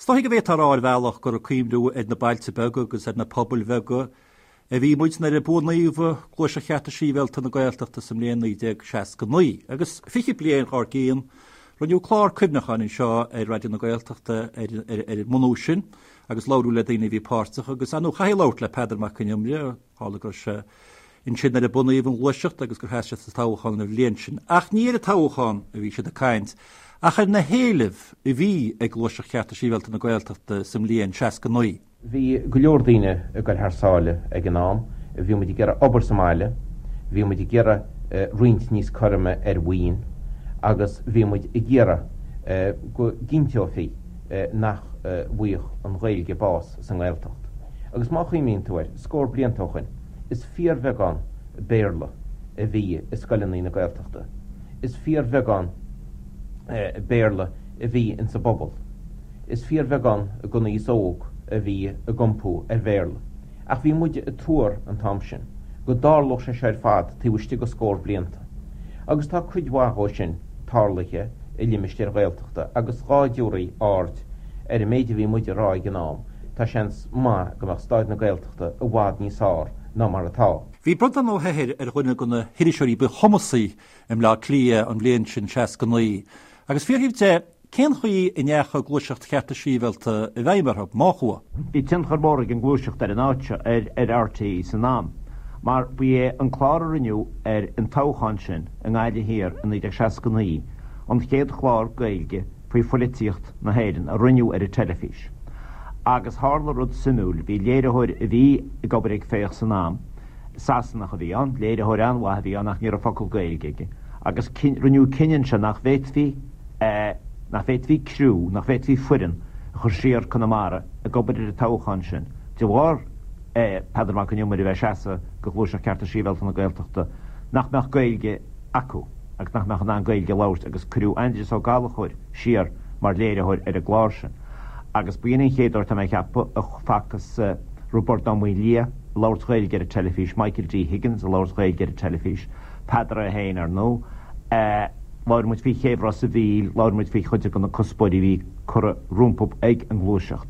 Is dóichí go bhféadfá a rá ar bhealach gur ag cuimhniú ar na bailte beaga agus ar na pobail bheaga a bhí muid nuair a bunaíodh Gluaiseacht Chearta Sibhialta na Gaeltachta sa mbliain 1969. Agus 20 bliain dhár gcionn, rinneadh clár cuimhneacháin anseo ar Raidió na Gaeltachta ar an mbunú sin agus labhradh le daoine a bhí páirteach agus, ar ndóigh, chaithfí labhairt le Peadar Mac Con Iomaire, Tharla go raibh sé ansin nuair a bunaíodh an ghluaiseacht agus gur sheas sé sa toghchán an bhliain sin. Ach ní ar an toghchán a bhí siad ag caint, ach ar na héilimh a bhí ag Gluaiseacht Chearta Sibhialta na Gaeltachta sa mbliain 69. Bhí go leor daoine ag goil thar sáile ag an am. Bhí muid ag iarraidh obair sa mbaile, bhí muid ag iarraidh roinnt níos cothroime ar mhaoin agus bhí muid ag iarraidh go gcinnteofaí nach bhfaigheadh an Ghaeilge bás sa nGaeltacht. Agus má chuimhníonn tú air, scór blianta ó shoin, is fíorbheagán Béarla a bhí i scoileanna na Gaeltachta. Is fíorbheagán Béarla a bhí insa bpobal. Is fíorbheagán den aos óg a bhí ag iompú ar Bhéarla. Ach bhí muide ag tuar an t-am sin go dtarlódh sé seo ar fad taobh istigh de scór blianta. Agus tá cuid mhaith dhó sin tarlaithe i limistéir Ghaeltachta agus dhá dtabharfaí aird ar an méid a bhí muid a rá ag an am, tá seans maith go mbeadh stáid na Gaeltachta i bhfad níos fearr ná mar atá. Bhí Breandán Ó hEithir ar dhuine de na hiriseoirí ba chumasaí i mBleá Cliath an bhliain sin, 69, agus fiafraíodh de cén chaoi a ndeachaigh Gluaiseacht Chearta Sibhialta i bhfeidhm orthu, má chuaigh. Bhí tionchar mór ag an ngluaiseacht ar an áit seo, ar RTÉ san am, mar ba é an clár a rinneadh ar an toghchán sin i nGaillimh Thiar i 1969 an chéad chlár Gaeilge faoi phoilitíocht na hÉireann a rinneadh ar an teilifís. Agus tharla rud suimiúil, bhí léiritheoir a bhí ag obair ag Féach san am, Sasanach a bhí ann, léiritheoir an-mhaith a bhí ann ach ní raibh focal Gaeilge aige, agus rinneadh cinneadh ansin nach bhféadfaí, nach bhféadfaí criú, nach bhféadfaí foireann a chur siar Conamara ag obair ar an toghchán sin de bharr Peadar Mac Con Iomaire a bheith ag seasamh do Ghluaiseacht Cearta Sibhialta na Gaeltachta, nach mbeadh Gaeilge acu agus nach mbeadh in ann Gaeilge a labhairt agus cuireadh Aindrias Ó Gallchóir siar mar léiritheoir ar an gclár sin. Agus ba in an chéad uair, tá mé ag ceapadh, a facthas Roibeárd Ó Maoildhia ag labhairt Gaeilge ar an teilifís, Michael D. Higgins ag labhairt Gaeilge ar an teilifís, Peadar é féin, ar ndóigh. Labhair muid faoi chéibh Ros a' Mhíl, labhair muid faoi chuid de na cuspóirí a bhí curtha rompu ag an ngluaiseacht.